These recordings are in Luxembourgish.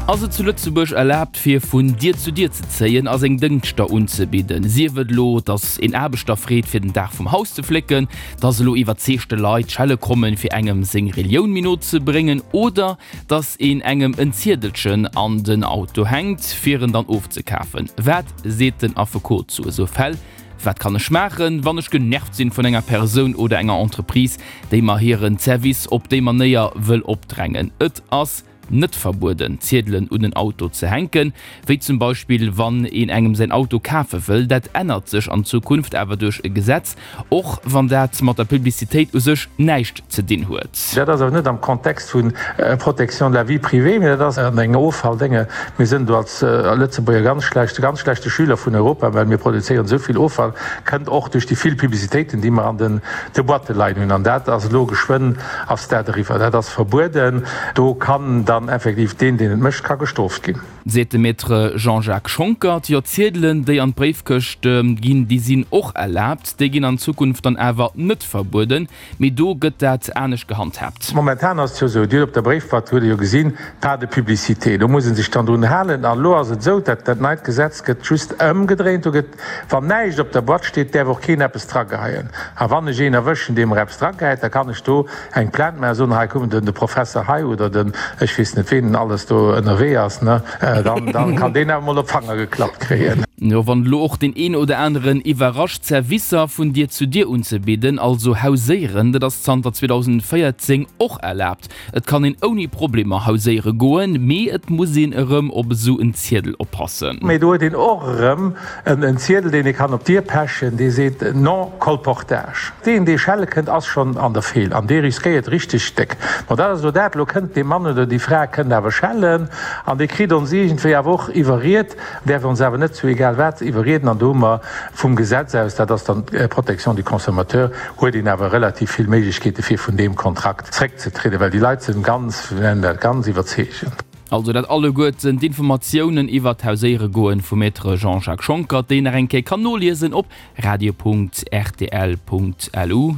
Ass et zu Lëtzebuerg erlaabt fir vun Dier zu Dier ze zéien a seng Dëngschter unzebidden? Sief et elo, datt een Aarbechter freet fir den Daach vum Haus ze flécken, datt elo iwwerzeegte Leit schelle kommen fir engem seng Relioun méi no ze bréngen oder datt een engem en Ziedelchen an den Auto hänkt fir en dann ofzekafen. Wat seet den Affekot zu esou Fäll? Wat kann ech maachen, wann ech genervt sinn vun enger Persoun oder enger Entreprise, déi mer hiren Service op déi Manéier wëll opdrängen? Et ass net verbueden, Ziedelen un en Auto ze hänken, wéi zum Beispill wann een engem säin Auto kafe wëll. Dat ännert sech an Zukunft awer duerch e Gesetz, och wann dat mat der Publicitéit u sech näischt ze dinn huet. Dat ass awer net am Kontext vu Protection de la vie privée, mee dat ass an engem Offalldénge. Mir sinn do als Lëtzebuerger ganz schlecht, ganz schlechte Schüler vun Europa, well mir produzéieren esou vill Offall, kënnt och duerch déi vill Publicitéiten, déi mer an den de Boîte leien hunn. An dat ass elo geschwënn ass dat eriwwer. Dat ass verbueden. Do kann dann effektiv deen, deen et mécht, ka gestrooft ginn. Seet de Maître Jean-Jacques Schonckert. Jo, Ziedelen, déi an d'Bréifkëscht ginn, déi sinn och erlaabt. Déi ginn an Zukunft dann awer net verbueden. Mee do gëtt dat anescht gehandhaabt. Momentan ass et jo esou, Dir hutt op der Bréifboîte, hutt Der jo gesinn, pas de publicité. Do muss ee sech dann drun halen. An elo ass et esou, dat dat neit Gesetz gëtt just ëmgedréint. Do gëtt, wann näischt op der Boîte steet, däerf och keen eppes drageheien. A wann ech een erwëschen, dee mer eppes dragehäit, da kann ech do eng Plainte maachen, soen, hei kuck, den de Professer hei oder den ech weess net ween alles do ënnerwee ass, ne, dann dann kann deen awer mol op d'Fanger geklappt kréien. Jo, wann elo och deen een oder aneren iwwerrascht, Servicer vun Dier zu Dier unzebidden, also hauséieren, dat ass zanter 2014 och erlaabt. Et kann een ouni Problemer hauséiere goen, mee et muss een erëm op esou en Ziedel oppassen. Mee do huet een och erëm en Ziedel, deen ee kann op d'Dier pechen, dee seet non colportage. Deen, dee schelle kënnt, ass schonn an der Feel an dee riskéiert richteg déck. Bon, dat ass elo dat. Elo kënnt dee Mann oder déi Fra kënnt awer schellen an dee kritt ons iergendwéi awer och iwwerriet, däerf ons awer net zu egal wat iwwerrieden an do hu mer vum Gesetz aus, dat ass dann d'Protection du consommateur, huet een awer relativ vill Méiglechkeete fir vun deem Kontrakt zréckzetrieden, well déi Leit sinn ganz, wéi nennen dat, ganz iwwerzeegend. Also dat alleguerten d'Informatiounen iwwert d'Hauséieregoen vum Maître Jean-Jacques Schonckert, déi een nach eng Kéier kann noliesen op radio.rtl.lu.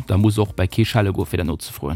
Da muss och bei kee schelle goen fir dat nozefroen.